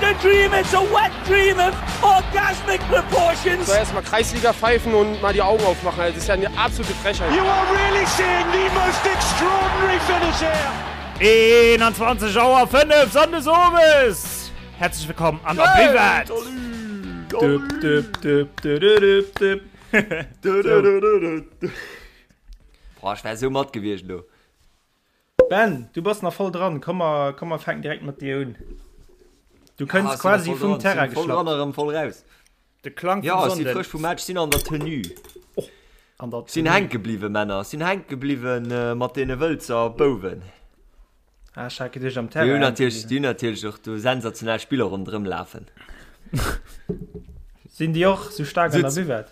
a dream, it's a wet dream of orgasmic proportions. So erstmal Kreisliga pfeifen und mal die Augen aufmachen. Das ist ja eine absolute Frechheit. You are really seeing the most extraordinary finish here. 21 Auer 5 Sonndes Owes! Herzlich willkommen an der Buvette! Boah, ech wär sou mat gewiescht elo. Ben, du bass nach voll dran, komm mer, komm mer fänken direkt mat dir un. Du kënns Ja, quasi vum Terrain voll dran geschlappt. erëm voll raus. De Klang vum Ja, ech si Sonnden. frësch vum Match, sinn an der Tenue. An der Sinn Tenue. hänke bliwwen, Männer, sinn hänke bliwwen mat deene Wëlzer Bouwen. Ah, ech hat geduecht am Déi Terrain hunn hänke natierlech, bliwwen. déi hunn natierlech och do sensationell Spiller ronderëm lafen. Sinn déi och sou staark an der Sutz. Buvette?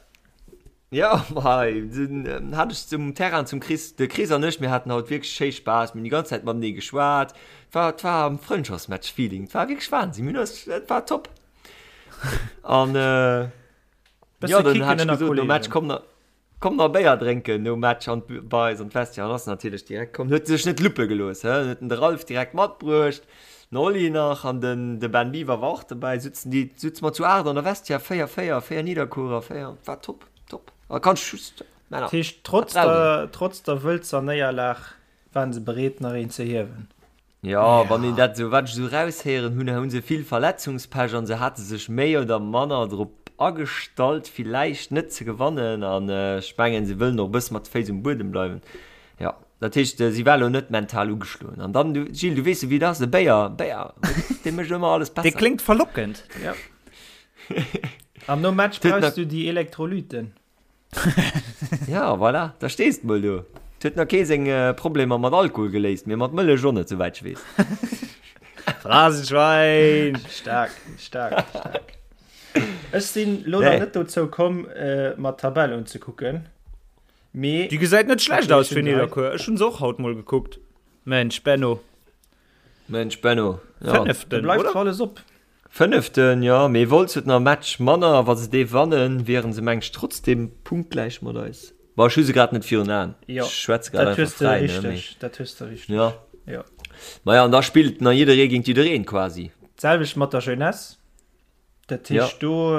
Jo, hei den hat ech zum Terrain zum Chris, de Chris an ech, mir haten haut wierklech schéi Spaass, mir hunn déi ganz Zäit matenee geschwat, et war, et war am Frëndschaftsmatch-Feeling, et war wierklech Wahnsinn, mir hunn eis, et war top. An jo, Bësse dann kicken hat ech ënner gesot nom Match, Kollegen. komm nach, komm nach Béier drénken nom Match an bei eis an d'Vestiaire, an ass natierlech direkt komm, huet sech net luppe gelooss, hä, huet en de Ralph direkt matbruecht, den Oli nach an den, de Ben Biwer war och dobäi, sutzen déi, sutze mer zu 8 an der Vestiaire, 4, 4, 4 Nidderkuerer, 4, war top, top. A kann ech just, Männer, Dat heescht, trotz dat brauch een. der, trotz der Wëlzer Néierlag waren se bereet nach een ze hiewen. Jo, wann een dat esou, wat ech esou eraushéieren hunn, hu se vill Verletzungspech an se hate sech méi oder manner drop agestallt, villäicht net ze gewannen an ech mengen, se wëllen och e bësse mat de Féiss um Buedem bleiwen. Jo, dat heescht, si war elo net mental ugeschloen. An dann, du, Gilles, du weess jo, wéi et ass, e Béier, Béier, dee mécht ëmmer alles Dee besser. kléngt verlockend. Ja. An nom Match Huet nach- brauchs du déi Elektrolyten. Ja, voilà, da stees de mol do. Et huet nach kee seng Problemer mat Alkohol geléist, mee mat Mëllech och net, souwäit ech weess. Phrasenschwein! Staark, staark, staark. Ech sinn lo nach Nee. net dozou komm, mer d'Tabell unzekucken. Mee Déi gesäit net schlecht aus fir Ech hunn se hei. Nidderkuer. Ech hunn se och haut mol gekuckt. Mensch Benno. Mensch Benno, ja. Da Fënneften, bleift oder? zwar alles op. Fënneften, jo, mee Wolz huet nach e Match manner a wa se dee wannen, wieren se meng ech trotzdem punktgläich mat eis. Bon, ech hu se grad net virun Aen, Jo, ech schwätze grad dat einfach hues de fräi, ne, mee richteg, dat hues de richteg. jo. Jo. Maja, an da spillt nach jidderee géint jiddereen quasi. D'selwecht mat der Jeunesse. Dat Ja. heescht, do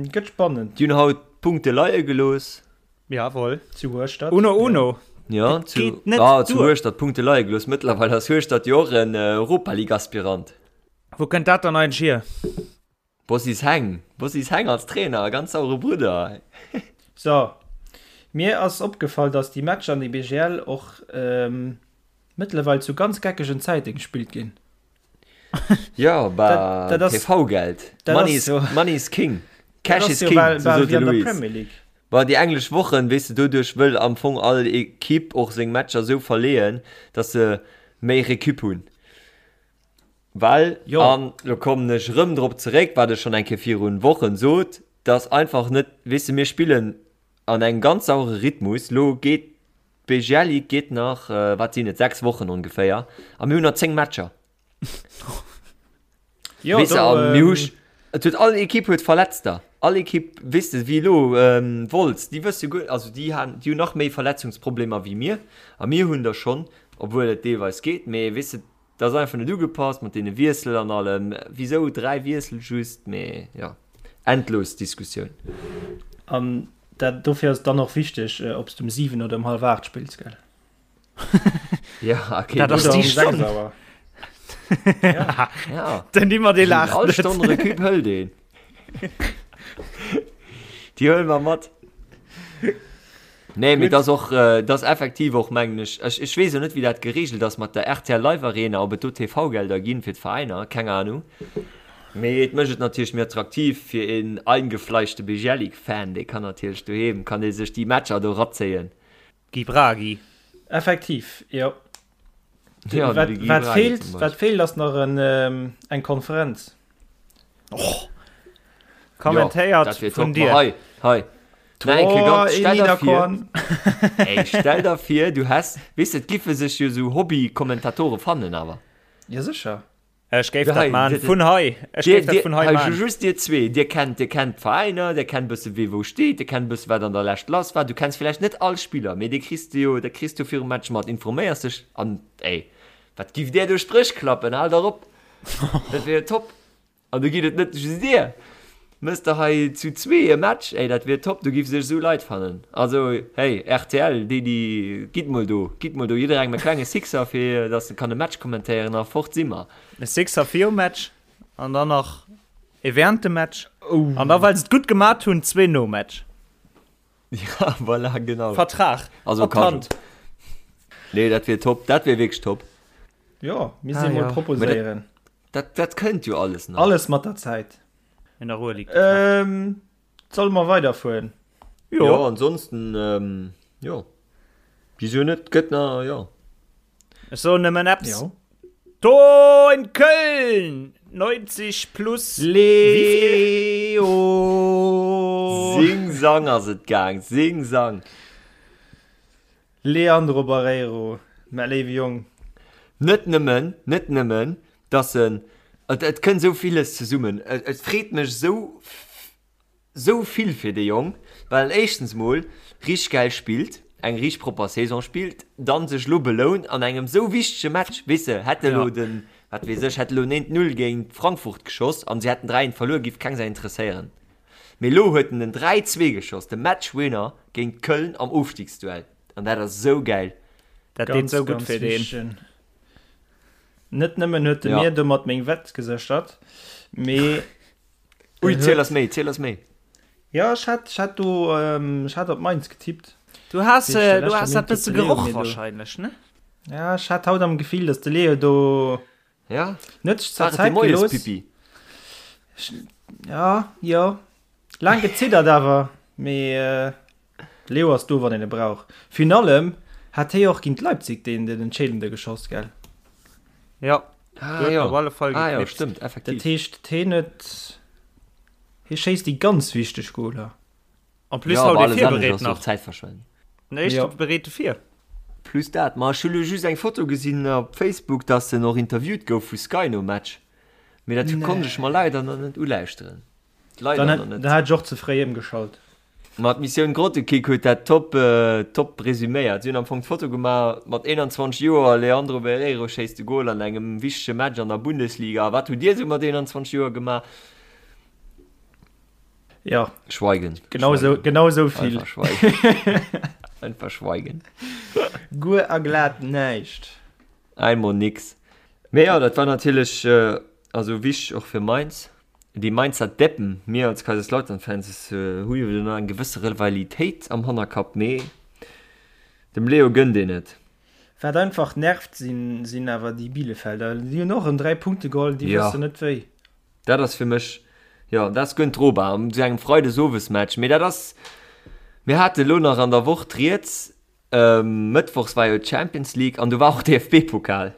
gëtt spannend. Déi hunn haut Punkte leie gelooss. Jawohl. Zu Hueschtert. Uno uno. Ja, Dat zu, geet net ah, zu duer. Hueschtert Punkte leie gelooss. Mëttlerweil ass Hueschtert jo och en Europa-League-Aspirant. Wou kënnt dat dann eigentlech hier? Bossis Heng, Bossis Heng als Trainer, ganz sauere Brudder. So, mir ass opgefall, dass déi Matcher an der BGL och mëttlerweil zu ganz geckegen Zäite gespillt ginn. Jo, bah, TV-Geld. Money is, money is king. Cash is king, sou sot de Louis. Bah, déi englesch Wochen, weess de, doduerch wëll am Fong all Ekipp och seng Matcher sou verleeën, dass se méi Recup hunn. Well, an lo kommen ech erëm drop zeréck, wat ech schonn eng Kéier virun Wochen sot, dass einfach net, weess de, mir spillen an engem ganz sauere Rhythmus, lo geet d'BGL Ligue geet nach, wat sinn et, 6 Wochen ongeféier, a mir hunn nach 10 Matcher. Jo, Weess de, do, a mir hu, et huet all Ekipp huet Verletzter, all Ekipp, weess de, wéi elo Wolz, déi wësse guer, also déi han, déi hunn nach méi Verletzungsproblemer wéi mir, a mir hunn der schonn, obwuel et deelweis geet, mee weess de, Dat ass einfach net ugepasst mat deene Wiessel an allem. Wisou 3 Wiessel just? Mee jo, endlos Diskussioun. An dat, dofir ass et dann och wichteg, ob s de um 7 oder um hallef 8 spills, gell? Ja, okay. Dat ass Oder déi um 6 Stonn. Auer. Ja. Ja. Den Dimmer, dee laacht All net. Stonn Recup hëlt een. Déi huele mer mat. Nee, mee dat ass och, dat ass effektiv och, mengen ech, ech, ech weess jo net, wéi dat geregelt ass mat der rtl Live Arena, ob et do TV-Gelder ginn fir d'Veräiner, keng Ahnung. Mee et mécht et natierlech méi attraktiv fir een eingefleischte Bejelic-Fan, dee kann natierlech doheem, kann dee sech déi Matcher do razéien. Guy Bragi. Effektiv, jo. Ja, Wat, de Guy wat Bragi feelt, zum wat Beispill. feelt ass nach en, eng Konferenz. Och. Jo, Kommentéiert dat wier vun top. Ma dir. hei, hei. Na, eng Kéier ganz, Tor stell der vir, Niederkorn. ey, stell der vir, du häss, weess de, et giffe sech jo sou Hobby-Kommentatore fannen awer. Ja, sécher. Ech géif Ja, dat hei, man dir, vun hei. Ech dir, géif dat dir, vun hei hei, man. just dir zwee, dir kennt, dir kennt d'Veräiner, dir kennt bësse wee wou steet, dir kennt bësse wat an der Lescht lass war. Du kenns villäicht net all Spiller, mee dee kriss de jo, dat kriss du virum Match mat, informéiers dech an, ey, wat giff där do Spréch klappen, hal dach op! Dat wier jo top! An do geet et net just dir. Mëss der hei zu zwee e Match, ey, dat wier top, do giff sech esou Leit fannen. Also, hey, rtl, déi, déi, gitt mol do, gitt mol do jidderengem e klenge Sixer, fir dass e kann e Match kommentéieren a fort si mer. E Sixer virum Match an dann nach ee während dem Match. An da, well se et gutt gemat hunn, zwee nom Match. Ja, voilà, genau. Vertrag Also op d'Hand. Nee, dat wier top, dat wier wierklech top. Jo, mir si mol proposéieren. Dat, dat kënnt jo alles nach. Alles mat der Zäit. In der Ruhe liegt die Kraft. Ähm, solle mer weiderfueren? Jo, jo ansonsten, ähm, jo. Wieso net? Gëtt na, jo. Ech soen nëmmen eppes. Jo. Tor in Köln! 90 plus Leo! Sing Sang ass et gaang, Sing Sang. Leandro Barreiro, mä léiwe Jong. Net nëmmen, net nëmmen, dass en, et, et kënnt esou villes zesummen, et, et freet mech esou, esou vill fir dee Jong, well en éischtens mol richteg gäil spillt, eng richteg propper Saison spillt, dann sech elo belount an engem esou wichtege Match, weess de, hätt e lo den, wat weess ech, hätt elo en 1, 0 géint Frankfurt geschoss an si hätten 3, 1 verluer, giff keng Sau interesséieren. Mee elo huet en den 3, 2 geschoss, de Matchwinner géint Köln am Ofstiegsduell. An dat ass esou gäil. Dat deet esou gutt fir deen. Net nëmmen huet de mir domat meng Wett geséchert, mee. Ui, ziel eis méi, ziel eis méi. Jo, ech hat, ech hat do, ech hat op Mainz getippt. Du has, du has dat bësse geroch wahrscheinlech, ne? Ja, ech hat haut am Gefill, datt de Leo do. Ja. Net sech zwar Zäit gelooss. Pipi. Ja, jo. Laang geziddert awer, mee de Leo ass do, wann een e brauch. Virun allem hat hie och géint Leipzig deen den entscheedende geschoss, gell? Ja. Ah, jo. Op alle Fall ah, jo, stëmmt, effektiv. Dat heescht, hien huet, hie schéisst déi ganz wichteg Goler. En plus haut ee virbereet nach. Zäitverschwendung. Den éischte bereet e vir. Plus dat, ma ech hu lo just eng Foto gesinn op Facebook, dass en och interviewt gouf vu Sky nom Match, mee dat konnt ech mer leider nach net ulauschteren. Leider Dann nach hätt net. da hätt ech och ze fréi ëmgeschalt. Ma d'Missioun Grottekick huet dat top top resuméiert. Si hunn am Fong d'Foto gemaach mat 21 Joer, Leandro Barreiro schéisst de Gol an engem wichtege Match an der Bundesliga. Wat hutt Dir esou mat 21 Joer gemaach? Ja. Schweigen. Genau so, genau so vill. Einfach schweigen. Einfach schweigen. Guer a glat näischt. Einmal nix. Mee ja, dat war natierlech äh, also wichteg och fir Mainz. Déi Mainzer Deppen, mir als Kaiserslautern-Fans äh, hu jo nach eng gewësse Rivalitéit am Hannerkapp, mee dem Leo gënnt een et. Wat einfach nervt sinn, sinn awer déi Bielefelder. Déi hunn och erëm 3 Punkte geholl, déi Ja. wëssen net wéi. Dat ass fir mech, jo, dat ass guer net drobar an esou engem Freidesowesmatch. Mee dat ass, mir hate elo nach an der Woch d'Rieds, mëttwochs war jo d'Champions League an do war och DFB-Pokal.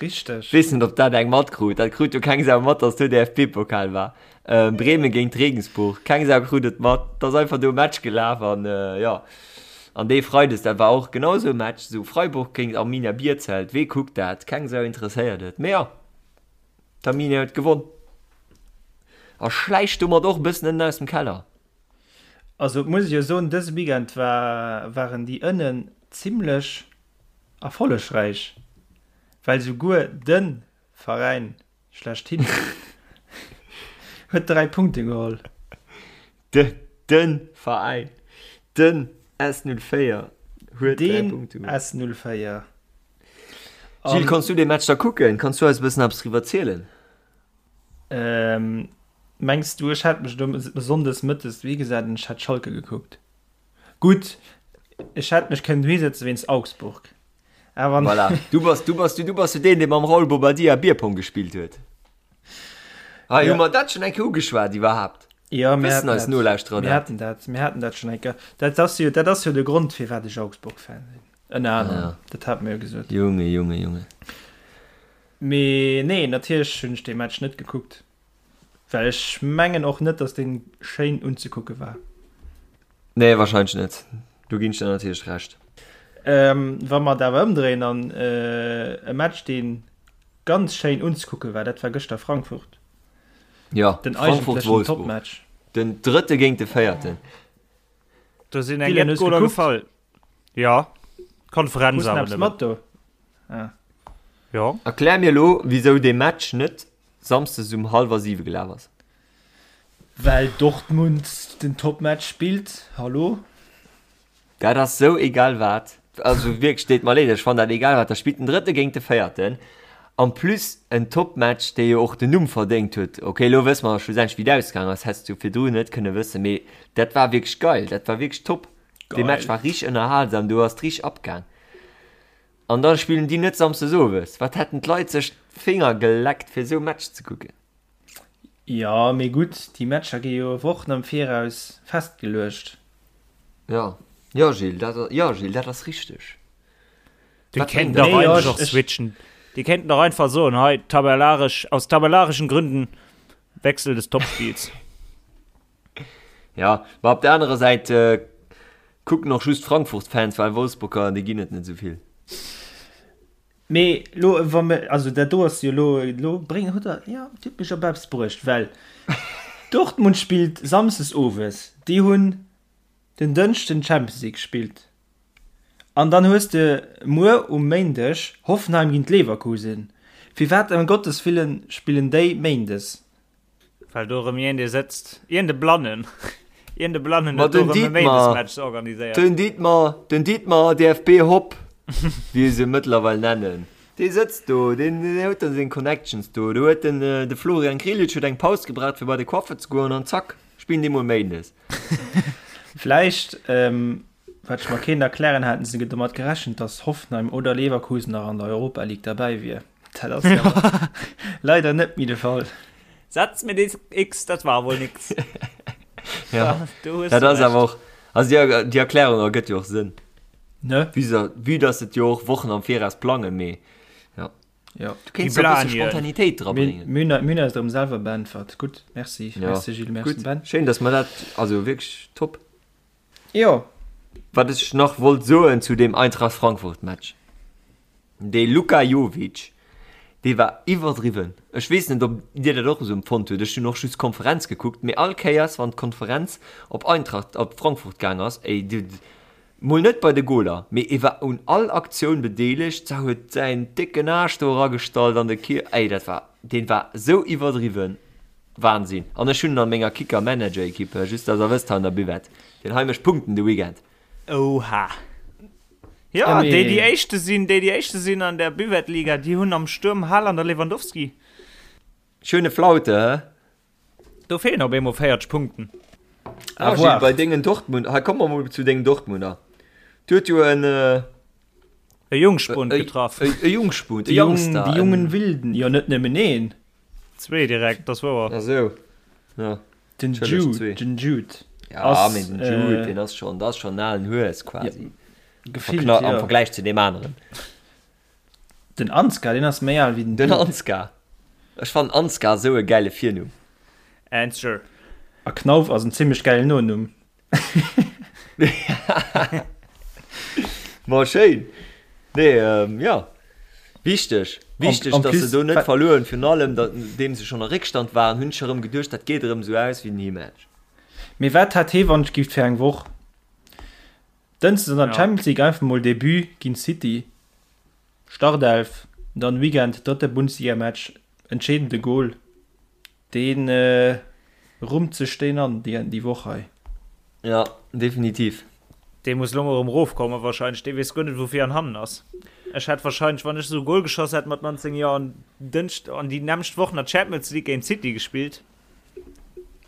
Richteg. Weess net, ob dat eng matkrut. Dat krut jo keng Sau mat, datt do DFB-Pokal war. Bremen géint Regensburg, keng Sau krut et mat. Et ass einfach do e Match gelaf an, jo. An dee Freides, dat war och genau esou e Match, esou Freiburg géint Arminia Bielefeld. Wee kuckt dat? Keng Sau interesséiert et. Mee jo. D'Arminia huet gewonn a schläicht domat och e bëssen ënnen aus dem Keller. Also et muss ech jo soen, dëse Weekend war waren déi ënnen zimlech erfollegräich, well souguer de Veräin schlechthin huet 3 Punkte geholl. De de Veräin, den S04 huet 3 Punkte geholl. Den S04. Gilles, kanns du dee Match da kucken? Kanns du eis e bëssen eppes driwwer zielen? Ähm, mengs du, ech hätt mech do sonndes mëttes dohi gesat an ech hätt Schalke gekuckt? Gutt, ech hätt mech kënnen dohi sëtze wéinst Augsburg, awer. Voilà, du bass, du bass, du bass jo deen, dee mam Raul Bobadilla Bierpong gespillt huet. Hei, hu mer dat schonn eng Kéier ugeschwat iwwerhaapt? Ja, mir Wëssen haten eis dat, Nolauschterer mir dat? haten dat, mir haten dat schonn eng Kéier. Dat ass jo, dat ass jo de Grond, firwat ech Augsburg-Fan sinn. Ënner anerem, Ja. dat hate mir jo gesot. Junge, Junge, Junge. Mee nee, natierlech hunn ech dee Match net gekuckt, well ech mengen och net, datt dee schéin unzekucke war. Nee, wahrscheinlech net. Do ginn ech der natierlech Recht. Ähm, wa mer et awer ëmdréien an e Match, dee ganz schéin unzekucke war, dat war gëschter Frankfurt. Ja, Den Frankfurt eigentlechen Wolfsburg. Topmatch. Den drëtte géint de véierten. Do sinn eng Dylan, jett hues Goler gekuckt? gefall. Ja, Konferenz Hues awer eppes nëmmen. mat do? Ah. Ja. Erklär mir elo, wisou dee Match net. Samsdes um hallwer 7 gelaf ass? Well Dortmund den Topmatch spillt, hallo? Dat ass sou egal wat. Also wierklech, deet mer leed, ech fannen dat egal wat. Da spillt den Drëtte géint de Véierten. En plus en Topmatch, dee jo och den Numm verdéngt huet. Ok, elo wësse mer schlussendlech wéi et ausgaangen ass, häss du virdru net kënne wëssen, mee dat war wierklech geil, dat war wierklech top. Dee Match war richteg ënnerhalsam, do ass et richteg abgaang. An da spillen déi net samsdes owes. Wat hätten d'Leit sech d'Finger geleckt fir esou Match ze kucken. Jo, mee gutt, déi Matcher gi jo Wochen am Viraus festgeluecht. Jo, jo Gilles, dat, jo Gilles, dat ass richteg. Déi kéinten dach eigentlech och switchen. Déi kéinten dach einfach soen, hei tabellaresch, aus tabellarischen Gründen Wechsel des Topspiels. Ja, ma op der anerer Säit kucken och just Frankfurt-Fans, well Wolfsburger, déi ginn et net esou vill. Mee lo, wa mir, also dat do ass jo lo, lo bréng, hutt Der, jo, Dir hutt mech op eppes bruecht, well Dortmund spillt samsdes owes, déi hunn den Dënschden d'Champions League gespillt an dann hues de muer um Méindeg Hoffenheim géint Leverkusen. Firwat ëm Gottes Willen spillen déi méindes? Well do erëm iergend ee sëtzt, iergend e Blannen, iergend e Blannen huet do erëm e Méindesmatch organiséiert. Den Dietmar, den Dietmar DFB Hopp, wéi se mëttlerweil nennen, dee sëtzt do, deen huet da seng Connections do. Do huet den, de Florian Grillitsch huet eng Paus gebraucht fir bei de Coiffer ze goen an zack, spillen déi mol Méindes. Vläicht, wat ech mer kéint erklären, haten se domat gerechent, datt Hoffenheim oder Leverkusen nach an der Europa League derbäi wier. Dat ass jo leider net méi de Fall. Setz mir des X, dat war wohl nix. Ja, dat ass awer och, also déi, déi Erklärung ergëtt jo och Sënn. Ne? Vue dass et jo och Wochen am Viraus plangen, mee ja. Ja. Du kéints e bësse Spontanitéit dra bréngen. Mir hunn eis erëm selwer beäntwert. Gutt, merci. Ja. Merci Gilles, merci Gutt. Ben. Schéin, dass mer dat, also wierklech top. Jo. Wat ech nach wollt soen zu deem Eintracht Frankfurt Match. Dee Luka Jovic, dee war iwwerdriwwen. Ech weess net, ob Dir dat och esou empfonnt hutt. Ech hunn och just d'Konferenz gekuckt, mee all Kéiers, wann d'Konferenz op Eintracht, op Frankfurt gaang ass, ey, du, mol net bei de Goler, mee e war un all Aktioun bedeelegt, sa huet säin décken Aarsch do eragestallt an de Kier, ey, dat war, deen war esou iwwerdriwwen, Wahnsinn. An ech hunn en an menger Kicker-Manager-Equipe, just dass Der wësst, hei an der Buvette, deen hei mécht Punkten de Weekend. Oha. Ja, déi déi éischte sinn, déi déi éischte sinn an der Buvette-Liga, déi hunn am Stuerm Haaland a Lewandowski. Schöne Flaute, hä? Do feelen op eemol 40 Punkten. Ah, Gilles, bei dengen Dortmund, hei komme mer mol zu dengen Dortmunder. Du huet jo en e Jungspund getraff. E Jungspund, e Youngster. Déi jungen Wilden, jo net nëmmen een. Zwee direkt, dat ass wouer. Ah sou, ja. Den Jude, den Jude. Ja, mee den Jude, deen ass schonn, dat ass schonn en alen Hues quasi. Gefillt, jo. Am Vergläich zu deem aneren. Den Ansgar, deen ass méi al wéi den Jude. Den Ansgar. Ech fannen Ansgar esou e gäile Virnumm. Answer. A Knauf ass en zimmlech gäilen Nonumm. Ma schéin. Nee, jo. Wichteg, wichteg, dass se do net verluer hunn. Virun allem, nodeem se schonn a Réckstand waren, hunn ech erëm geduecht, dat geet erëm esou aus wéi den Heematch. Mee wat hat hee wann ech gift fir eng Woch? Dënschdes an der Champions League einfach mol Debut géint City, Startelf, dann Weekend drëtte Bundesligamatch, entscheedende Gol. Deen rummt sech deen an déi Woch hei. Jo, definitiv. Dee muss lo mol erëm rofkommen wahrscheinlech. Dee weess guer net wou vir an hannen ass. Ech hätt wahrscheinlech, wann ech esou e Goal geschoss hätt mat 19 Joer an Dënschd an déi nämmlecht Woch nach d'Champions League géint City gespillt,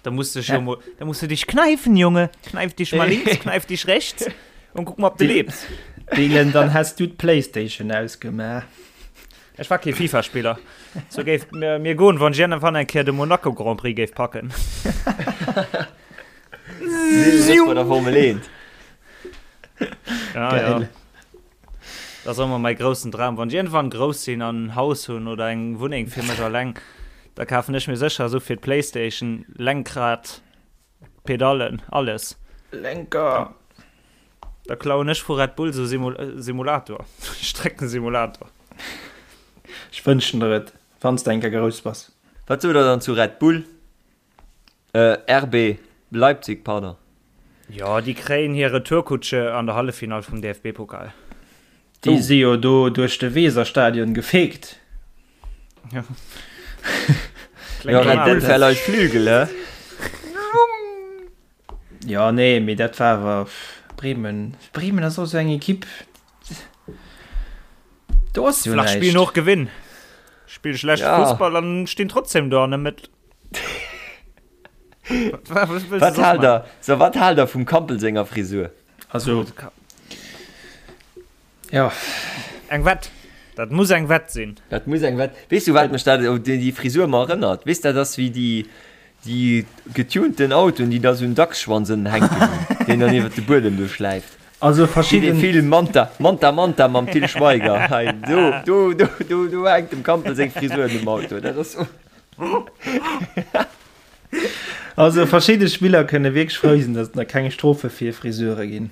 da muss dech jo mol, da muss du dich kneifen, Junge. Kneif dich mal links, kneif dich rechts und guck mal ob de lebs. Dylan, dann häss du d'Playstation ausgemaach. Ech war kee FIFA-Spiller. Sou géif mir, mir goen, wann ech iergendwann eng Kéier de Monaco Grand Prix géif packen. Bei der Formel 1. Ja, ja. Dat ass ëmmer mäi groussen Dram. Wann ech iergendwann grouss sinn an en Haus hunn oder eng Wunneng fir mech alleng, da kafen ech mir sécher esou fir d'Playstation, Lenkrad, Pedallen, alles. Lenker. Da klauen ech vu Red Bull sou Simulator, Streckensimulator. Ech wënschen der et, wann s de eng Kéier grouss bass. Wat sot der dann zu Red Bull? Äh, RB Leipzig, pardon. Jo, déi kréien hir Retourkutsche an der Halleffinall vum DFB-Pokal. Déi si jo do duerch de Weserstadion gefeegt. Ja. Ja, Red Bull verleiht Flügel, hä? Ja, nee, mee dat war awer Bremen. Bremen ass och esou eng Ekipp. Do ass jo näischt. Spillen och gewinn. Spille schlecht ja. Fussball an stinn trotzdem do an der Mëtt. Wat haalt der, so, wat haalt der vum Kampl senger Frisur? Also, ja. Eng Wett. Dat muss eng Wett sinn. Dat muss eng Wett. Weess du, wat mech dat, déi, déi Frisur ëmmer erënnert? Weess, dat ass wéi déi, déi getunten Autoen, déi da sou en Dachsschwanz ënnen hänken hunn, deen dann iwwer de Buedem do schläift. Also verschidden. Wéi dee Film Manta, Manta, Manta mam Til Schweiger. Hei, do, do, do, do, do hänkt dem Kampl seng Frisur un dem Auto. Dat ass sou. Also verschidde Spiller kënne wierklech frou sinn, datt et nach keng Strofe fir Friseure ginn.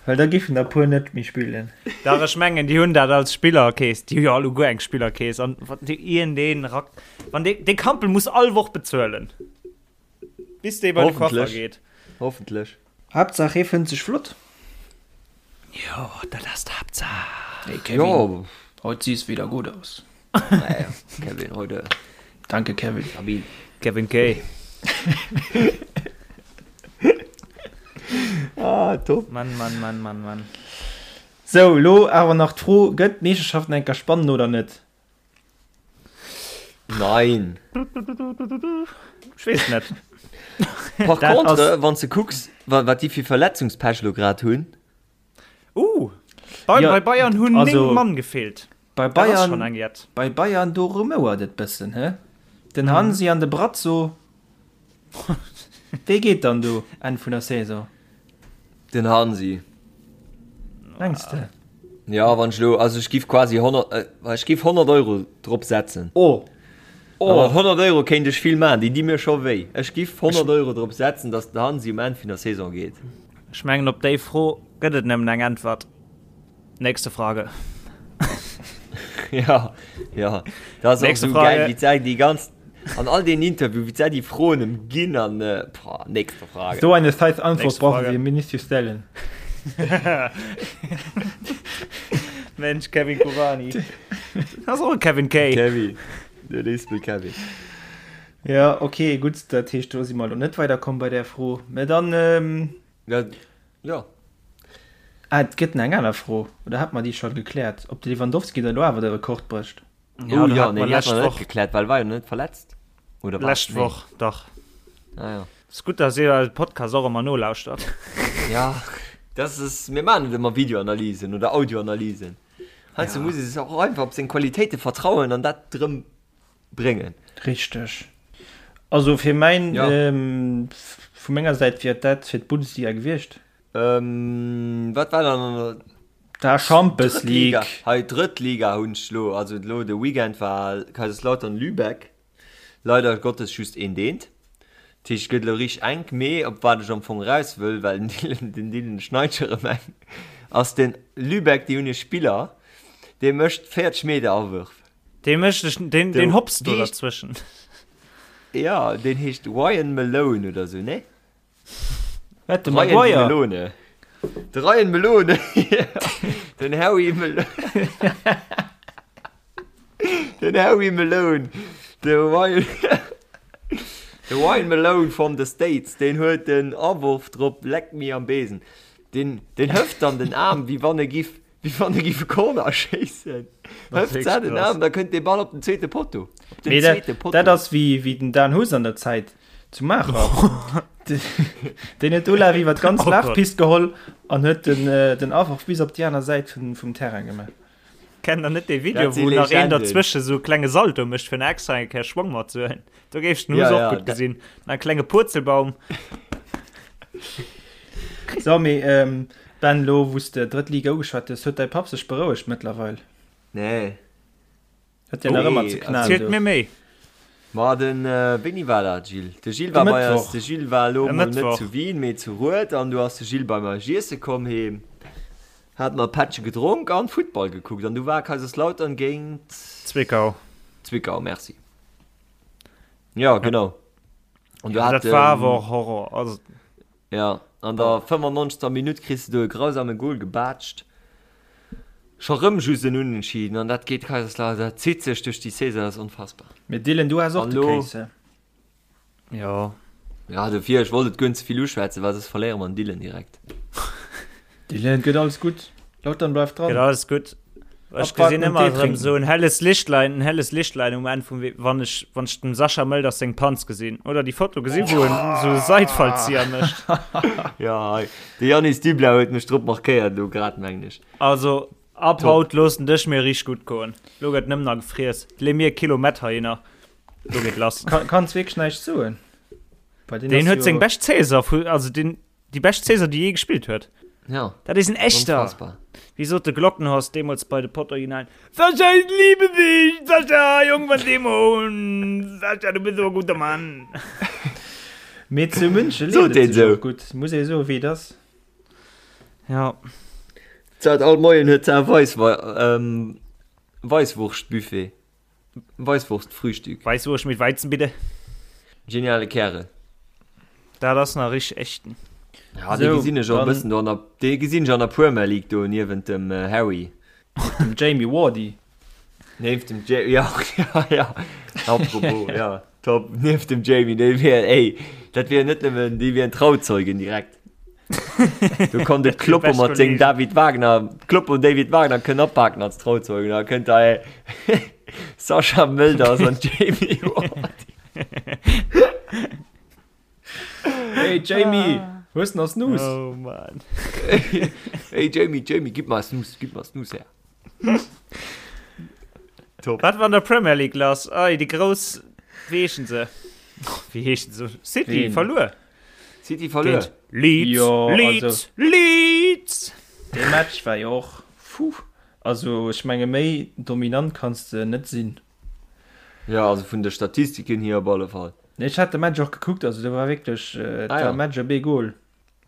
Well da giffen der puer net méi spillen. Dach ech mengen déi hunn dat als Spillerkeess, déi hu jo alleguer eng Spillerkeess an wann déi iergendeen rak, wann dee, dee Kampl muss all Woch bezuelen, bis dee bei de Coiffer geet. Hoffentlech. Haaptsaach hee fënnt sech flott. Jo, dat ass d'Haaptsaach. Hey Kevin, jo. Heute siehst wieder gut aus. Naja, Kevin, heute. Danke Kevin. Stabil. Kevin K. ah, top. Mann, Mann, Mann, Mann, Mann. Sou, lo awer nach d'Fro, Gëtt d'Meeschterschaft nach eng Kéier spannend oder net? Nein. Ech weess net. Par contre, wann s de kucks, wat déi fir Verletzungspech elo grad hunn. Uh, bei, ja, bei Bayern hunn also, 9 Mann gefeelt. Bei Bayern, bei Bayern do rumouert et bëssen, hä? Den mhm. Hansi an de Brazzo. Wee geet dann do Enn vun der Saison? Den Hansi. Mengs de? Ja, wann ech lo, also ech giff quasi 100, äh, ech giff 100 Euro drop setzen. Oh. Oh. Mat 100 Euro kéint ech vill maachen, déi di mir scho wéi. Ech giff 100 Euro drop setzen, dass den Hansi um Enn vun der Saison geet. Ech mengen op déi Fro gëtt et nëmmen eng Äntwert. Nächste Frage. Ja, ja. Dat ass och esou geil, wéi d'Sai déi ganz, an all deenen Interviewen, wéi d'Sai déi Froen ëm ginn an, boah, nächste Frage. So eine scheiß Antwort brauchen Sie mir nicht zu stellen. Mensch, Kevin Kurani. Dat ass och e Kevin K. Kevin, den Ispel Kevin. Ja, okay, gutt, dat heescht, do si mer elo net weiderkomm bei där Fro. Mä dann, Ja, ja. Ah, et gëtt nach eng aner Fro, oder hat mer déi scho gekläert, ob de Lewandowski da lo awer de Rekord brécht? Ja, oh, ja, nee, déi hat mer net gekläert, well war jo net verletzt. Oder wat? Lescht Woch, nee. dach. Ah, ja. Ass gutt, dass dir eise Podcast och ëmmer nolauschtert. Ja, das ist, mir maachen net ëmmer Videoanalysen oder Audioanalysen. Heiansdo ja. muss ee sech och einfach op seng Qualitéite vertrauen an dat drëm bréngen. Richteg. Also fir mäin, ja. ähm, vu menger Säit wier dat fir d'Bundesliga gewiescht. Ähm, wat war dann an der Da Champions League. Hei Drëttliga hunn ech lo, also lo de Weekend war Kaiserslautern Lübeck. Leider Gottes just een deent. Dat heescht, et gëtt elo richteg enk, mee op wat ech am Fong eraus wëll, well den Dylan, den Dylan schneit scho rëm eng, ass den Lübeck, déi hunn e Spiller, dee mécht 40 Meter Awërf. Dee mécht ech, deen, deen hopst do derzwëschen. Ja, deen heescht Ryan Malone oder sou, nee? Wat, de Maguire? Melone. De Ryan Melone. Den Harry Melone. Den Harry Malone. De Ryan. De Ryan Malone from the States, deen huet den Awurf drop, leck mi am Besen. Den, den hëft dann den Aarm, wéi wann e giff Wéi wann e giff e Corner schéissen. Hëft se den Aarm, da kënnt dee Ball op den zweete Potto. Op den zweete Potto. Dat ass wéi, wéi den Dan Huss an der Zäit zu Maacher. Deen huet Olaf iwwer d'ganz oh Lafpist geholl an huet den, äh, den Awurf bis op déi aner Säit vum, vum Terrain gemaach. Kennt der net dee Video, wou nach een derzwësche sou e klenge Salto mécht, fir nach extra eng Kéier Schwong matzehuelen? Do géif ech den Huss ja, och ja, gutt gesinn. En klenge Purzelbaum. So, mee, ähm, Ben, lo wou s de drëtt Liga ugeschwat hues, huet däi Papp sech berouegt mëttlerweil? Nee. Huet deen nach ëmmer ze knallen do? Erzielt mir méi. Ma den, wéini war dat, Gilles? De Gilles war bei eis, de Gilles war elo mol net zu Wien, mee zu Rued an du ass de Gilles bei mer iesse komm heem, hat mer e Pättche gedronk an Futtball gekuckt an du war Kaiserslautern géint Zwickau. Zwickau, merci. Ja, genau. An du hat, dat war awer och Horror. Also. Ja, an der 95. Minutt kriss de do e grausame Gol gebaatscht. Scho rëm just en Unentschieden an dat geet Kaiserslautern, dat zitt sech duerch déi Saison, dat ass onfassbar. Mee Dylan, du has och de Case, he? Jo. Ja, dofir, ech wollt et guer net ze vill uschwätzen, well soss verléiere mer den Dylan direkt. Dylan, gëtt alles gutt. Lautern bleift dran. Gëtt alles gutt. Ech gesinn ëmmer erëm esou en helles Lichtlein, en helles Lichtlein um Enn vum Wee, wann ech, wann ech dem Sascha Mölders seng Panz gesinn. Oder déi Foto gesinn, wou en esou e Seitfallzieher mécht. Ja, hei, de Yannis Dublau huet mech drop markéiert elo grad, mengen ech. Also, ab Top. haut loossen dech mir richteg gutt goen. Lo gëtt nëmmen nach gefriess. Leeë mir e Kilo Mett heihinner. Lo geet lass. Kann, kanns wierklech näischt soen. Bei deen Deen huet seng bescht Saison vu, also deen, Déi bescht Saison, déi jee gespillt huet. Ja. Dat is en echter. Unfassbar. Wéi sot de Glockenhorst deemools bei de Pottoriginalen, Sascha, ich liebe dich! Sascha, Jong van Demon! Sascha, du bist so e guter Mann! Mee zu München leeft et sech och gutt, muss ee soen, wéi et ass. Ja. Zat all Moien huet se Weisswurschtbuffet. Weisswurstfrühstück. Weisswurscht mit Weizen bitte. Geniale Kärel. Dat ass nach richteg echten. Ja, dee gesinn ech och e bëssen do an der, dee gesinn ech an der Premier League do niewent dem Harry. Dem Jamie Wardy. Nieft dem Jamie, ja, ja, ja. Apropos, ja, top. Nieft dem Jamie, dee wier, ey, dat wier net nëmmen, déi wieren Trauzeugen direkt. Do kann de Kloppo mat sengem David Wagner, Kloppo und David Wagner kënnen apaken als Trauzeugen. Da kënnt da Sascha Mölders an Jamie Vardy. Hey Jamie, hues nach Snus? Oh Mann. Hey Jamie, Jamie, gib mal Snus, gib mal Snus her. Top. Wat war an der Premier League lass? Ei, déi grouss, wéi heeschen se? Wéi heeschen se? City Ween? verluer. City verluer. Géint Leeds, Jo, Leeds, also- Leeds! Dee Match war jo och, puh, also ech menge méi dominant kanns de net sinn. Ja, also vun de Statistiken hier op alle Fall. Nee, ech hat de Match och gekuckt, also do war wierklech, et Ah war ja. e Match op ee Goal.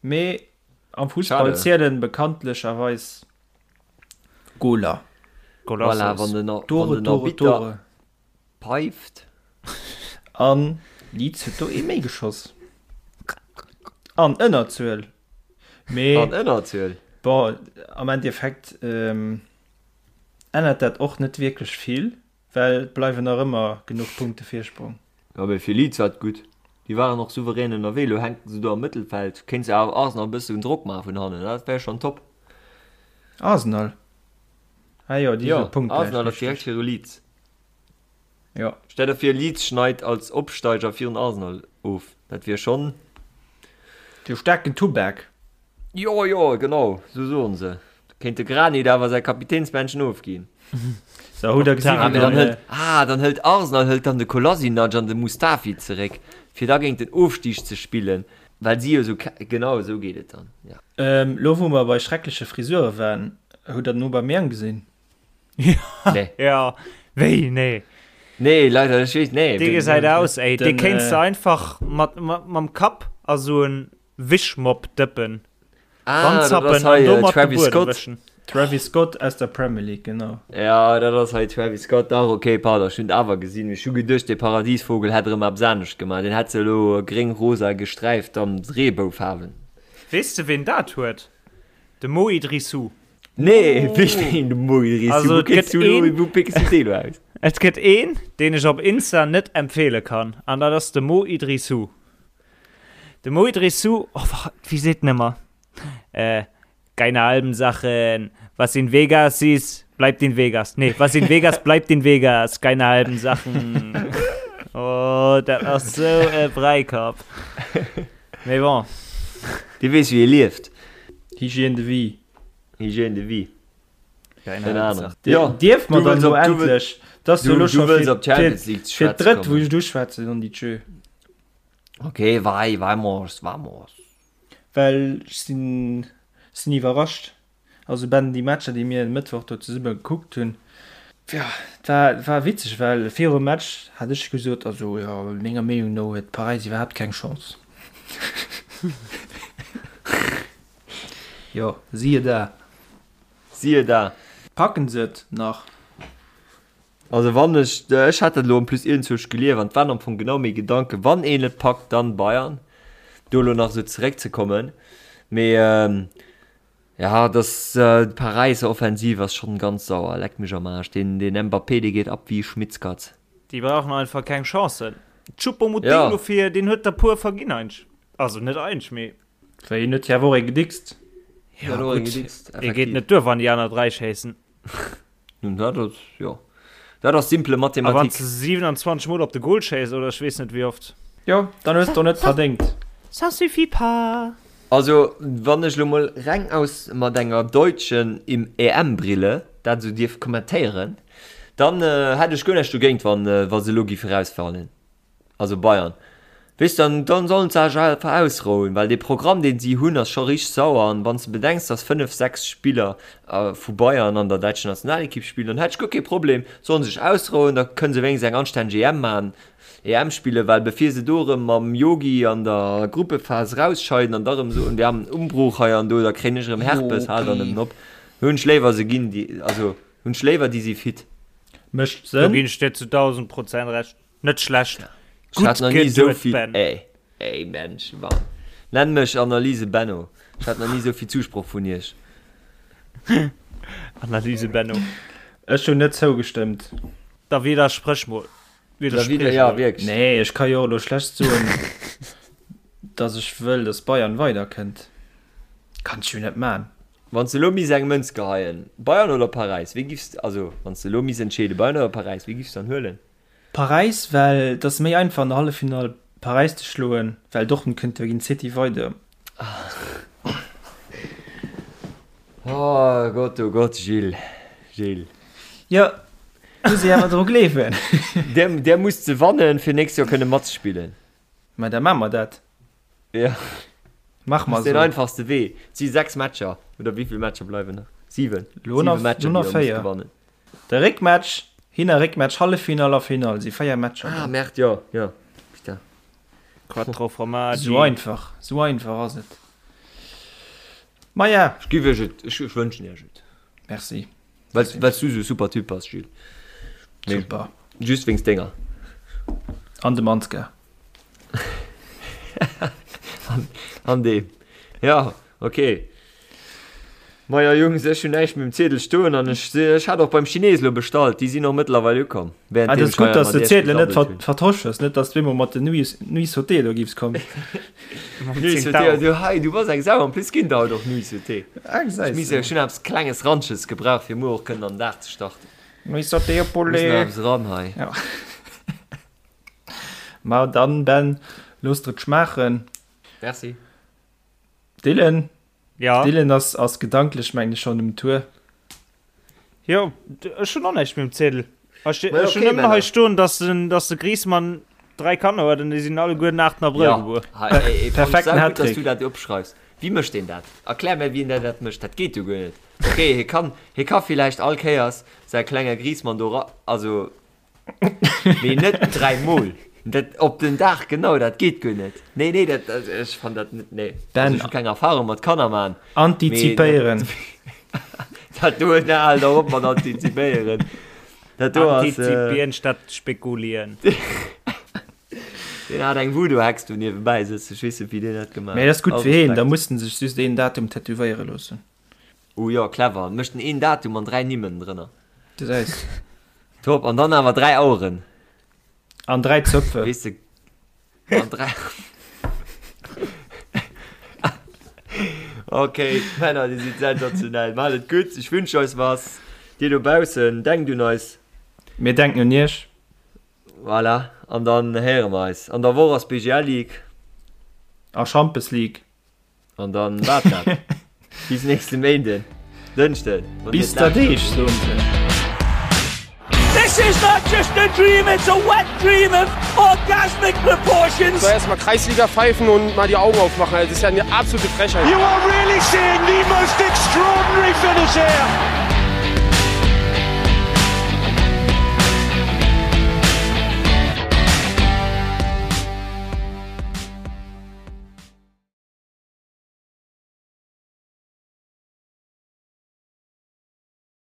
Mee am Fussball Schade. zielen bekanntlecherweis Goaler. Voilà, wann den, wann Tore, den Tore, Arbitter Tore. peift. An Leeds huet do ee méi geschoss. An Ënnerzuel. Mee An Ënnerzuel. bon, am Endeffekt ännert dat och net wierklech vill, well et bleiwen nach ëmmer genuch Punkte Virsprong. Jo, mee fir Leeds war et gutt. Déi waren och souverän ënnerwee. Elo hänken se do am Mëttelfeld. Kéint se awer Arsenal e bëssen Drock maache vun hannen. Dat wär schonn top. Arsenal? Ah jo, déi Jo, si punktgläich, Arsenal ass direkt richteg. viru Leeds. Jo. Stell der vir Leeds schneit als Opsteiger virun Arsenal of, dat wier schonn. De staarken Tubak. Jo jo genau sou soen se. Da kéint de Granit awer säi Kapitänsbändchen ofginn. So, hutt der gesinn, Ah, wéi mee dann den. hëlt, ah, dann hëlt Arsenal hëlt dann de Kolasinac an de Mustafi zeréck, fir da géint den Ofstig ze spillen, well si jo sou, genau esou geet et dann, ja. Lo wou mer bei schreckleche Frisure waren, hutt der den Aubameyang gesinn? Nee. Ja, wéi, nee. Nee, leider, ech weess, nee. Dee gesäit aus, ey, dee Den, kéints äh, de einfach mat, mat, mam Kapp a sou en Wischmopp dëppen. Ah, dat ass Ranzappen an hei äh, domat de Travis Buedem Scott. wëschen. Travis Scott aus der Premier League, genau. Ja, dat ass hei Travis Scott. Dach, okay, pardon, ech hunn et awer gesinn. Ech hu geduecht, dee Paradiesvogel hätt erëm eppes anescht gemaach. Deen hätt se elo gréng-rosa gesträift an Reeboufaarwen. Weess de ween dat huet? De Mo Idrissou. Nee, wéi de Mo Idrissou? Also, Wou et kriss gëtt du elo, een- wou pickst du deen elo aus? Et gëtt een, deen ech op Insta net empfeele kann, an dat ass de Mo Idrissou. De Mo Idrissou, oh, wa, wéi seet en ëmmer? Äh, keine halben Sachen, was in Vegas ist, bleibt in Vegas. Nee, was in Vegas bleibt in Vegas, keine halben Sachen. Oh, dat ass sou e Bräikapp. Mee bon. Dee weess, wéi ee lieft. Hygiène de vie. Hygiène de vie. Keine Ahnung. Ja, Dierf mer du dann wëlls elo op- du wëll- endlech, dass du du- elo du scho wëlls fir op d'Champions League ze fir schwätze d'drëtt wou kommen. ech et uschwätzen, non di tschö. Okay, vai, vamos, vamos. Well ech sinn sinn iwwerrascht. Also Ben, déi Matcher déi mir e Mëttwoch do zesumme gekuckt hunn, jo, et war et war witzeg, well virum Match hat ech gesot, also jo, menger Meenung no huet Paräis iwwerhaapt keng Chance. Jo, siehe da. Siehe da. Packen se et nach? Also wann ech, ech hat dat elo en plus iergendzwousch gelief an et waren am Fong genau meng Gedanken, wann een et packt, dann Bayern, do elo nach esou zeréckzekommen. Mee. Ja, das äh, d'Paräisser Offensiv ass schonn ganz sauer, leck mech am Aarsch. Den, den Mbappé, dee geet ab wéi Schmittskatz. Déi brauchen einfach keng Chancen. Choupo-Moting ja. dofir, deen huet der puer verginn eigentlech. Also net eigentlech, mee. Well hien huet jo awer och ee gedickst. Ja, gutt, ee geet net duer, wann déi aner 3 schéissen. Nun, dat ass, jo. Dat ass simple Mathematik. A wann s de 27 Mol op de Goal schéiss, oder ech weess net wéi oft. Jo, dann hues de och net verdéngt. Ça suffit pas. Also, wann ech lo mol reng aus mat enger deutschen EM-Brille dat esou dierf kommentéieren, dann hätt ech guer näischt dogéint, wann wa se elo géife rausfalen. Also Bayern. Weess dann, dann sollen se sech einfach ausrouen, well dee Programm deen si hunn ass scho richteg sauer an wann s de bedenks dass 5, 6 Spiller vu Bayern an der däitscher Nationalekipp spillen, dann hätt ech guer kee Problem, sollen sech ausrouen, da kënne se wéinstens eng anstänneg EM maachen, EM spillen, well bevir se do erëm mam Yogi an der Gruppephas rausscheiden an da erëm soen, wir haben Umbruch hei an do, da kréien ech erëm Herpes, hal dann nëmmen op, hunn ech léiwer se ginn déi, also hunn ech léiwer déi si fit. Mécht Sënn. Do ginn ech dir zu 1000% Recht. Net schlecht. Ech hat nach ni esou vill, Ben. Ey, ey Mensch, Mann. Nenn mech Analyse Benno. Ech hat nach ni esou vill Zusproch vun iech. Analyse Benno. Ech hunn net zougestëmmt. Da widdersprech mol. Da widder, ja, wierklech. Nee, ech ka jo och elo schlecht soen, dass ech wëll, dass Bayern weiderkënnt. Kann ech jo net man. Wann s de elo misst eng Mënz geheien, Bayern oder Paräis, wee giffs, also wann s de elo misst entscheeden, Bayern oder Paräis, wee giffs dann huelen? Paräis, well et ass méi einfach an der Halleffinall Paräis ze schloen, well Dortmund kënnt jo géint City weider. Oh Gott, oh Gott, Gilles, Gilles. Jo, muss ee awer dru gleewen. Där, där muss ze wannen, fir nächst Joer kënne matzespillen. Mä da maache mer dat. Ja. Mach mal so. Den einfachste Wee. Et si 6 Matcher oder wéi vill Matcher bleiwen nach? 7. Lo nach, Matcher, lo nach 4. De Réckmatch, Hin a Réckmatch, Halleffinall a Finall si 4 Matcher. Ah, Merde, jo, jo. Putain. Quattro Formaggi. Sou einfach, sou einfach ass et. Maja. Ech giff iech et, ech wënschen iech et. Merci. Well, well s du sou e super Typ bass, Gilles. Super. Just wéinst denger. An dem Ansgar. An, an deem. Ja, okay. Maja Jungs, ech hunn näischt méi um Ziedel stoen an ech, ech hat och beim Chines lo bestallt, déi sinn och mëttlerweil ukomm. Ah, dat ass gutt, dass de Ziedelen net ver, vertosch hues, net dass du eemol mat den Nuits, Nuits Sauté do giffs kommen. Nuits Sauté, du hei, du bass eng Sau, en plus ginn der haut och Nuits Sauté. Ah, gesäis Ech misst, ech hunn eppes klenges Ranches gebraucht, fir muer och kënnen an den Dag ze starten. Nuits Sauté au Muss nach poulet. eppes eran hei. Ja. Ma dann, Ben, looss der et schmaachen. Merci. Dylan? Ja. Dylan ass, ass gedanklech, mengen ech, schonn um Tour. Jo, ech hunn och näischt méi um Ziedel. Ech, Ma ech hunn okay, nëmmen hei Männer. stoen, dass den, dass de Griezmann 3 Kanner huet an déi sinn alleguer den 8. Abrëll Ja, gebuer. hei, ey, ey, fand ech Perfekten saugutt, dass Hattrick. du dat opschreifs. Wéi mécht deen dat? Erklär mir, wien der dat mécht. Dat geet jo guer net. Okay, hie kann, hie ka villäicht all Kéiers säi klenge Griezmann do ra, also Mee net 3 mol. Dat op den Dag genau, dat geet guer net. Nee, nee, dat, dat, ech fan dat net, nee. Ben, Also, ech hu keng Erfahrung mat Kanner man. Antizipéieren. Dat do, na, hal der op mat antizipéieren. Dat do ass, äh, Antizipieren statt spekulieren. Deen hat eng Voodoo-Hex do niewebäi sëtzen. Ech weess net, wéi deen dat gemaach Mee dat ass gutt All fir heen, da Respekt. muss en sech just een Datum tätowéiere loossen. Oh jo, clever. Mécht en een Datum an 3 Nimm ënnendrënner. Gesäis. Top, an dann awer 3 Aueren. An 3 Zöpfe. Weess de, an 3. Okay, Männer, dir sidd sensationell. Maacht et gutt, ech wünsch eis was. Dir dobaussen, denkt un eis. Mir denken un iech. Voilà, an dann héiere mer eis. An der Woch ass BGL League. A Champes League. An dann war dat. Bis nächste Méinden, Dënschden. Bis der Deeg, soen se. This is not just a dream, it's a wet dream of orgasmic proportions. So erstmal Kreisliga pfeifen und mal die Augen aufmachen. Das ist ja eine absolute Frechheit. You are really seeing the most extraordinary finish here.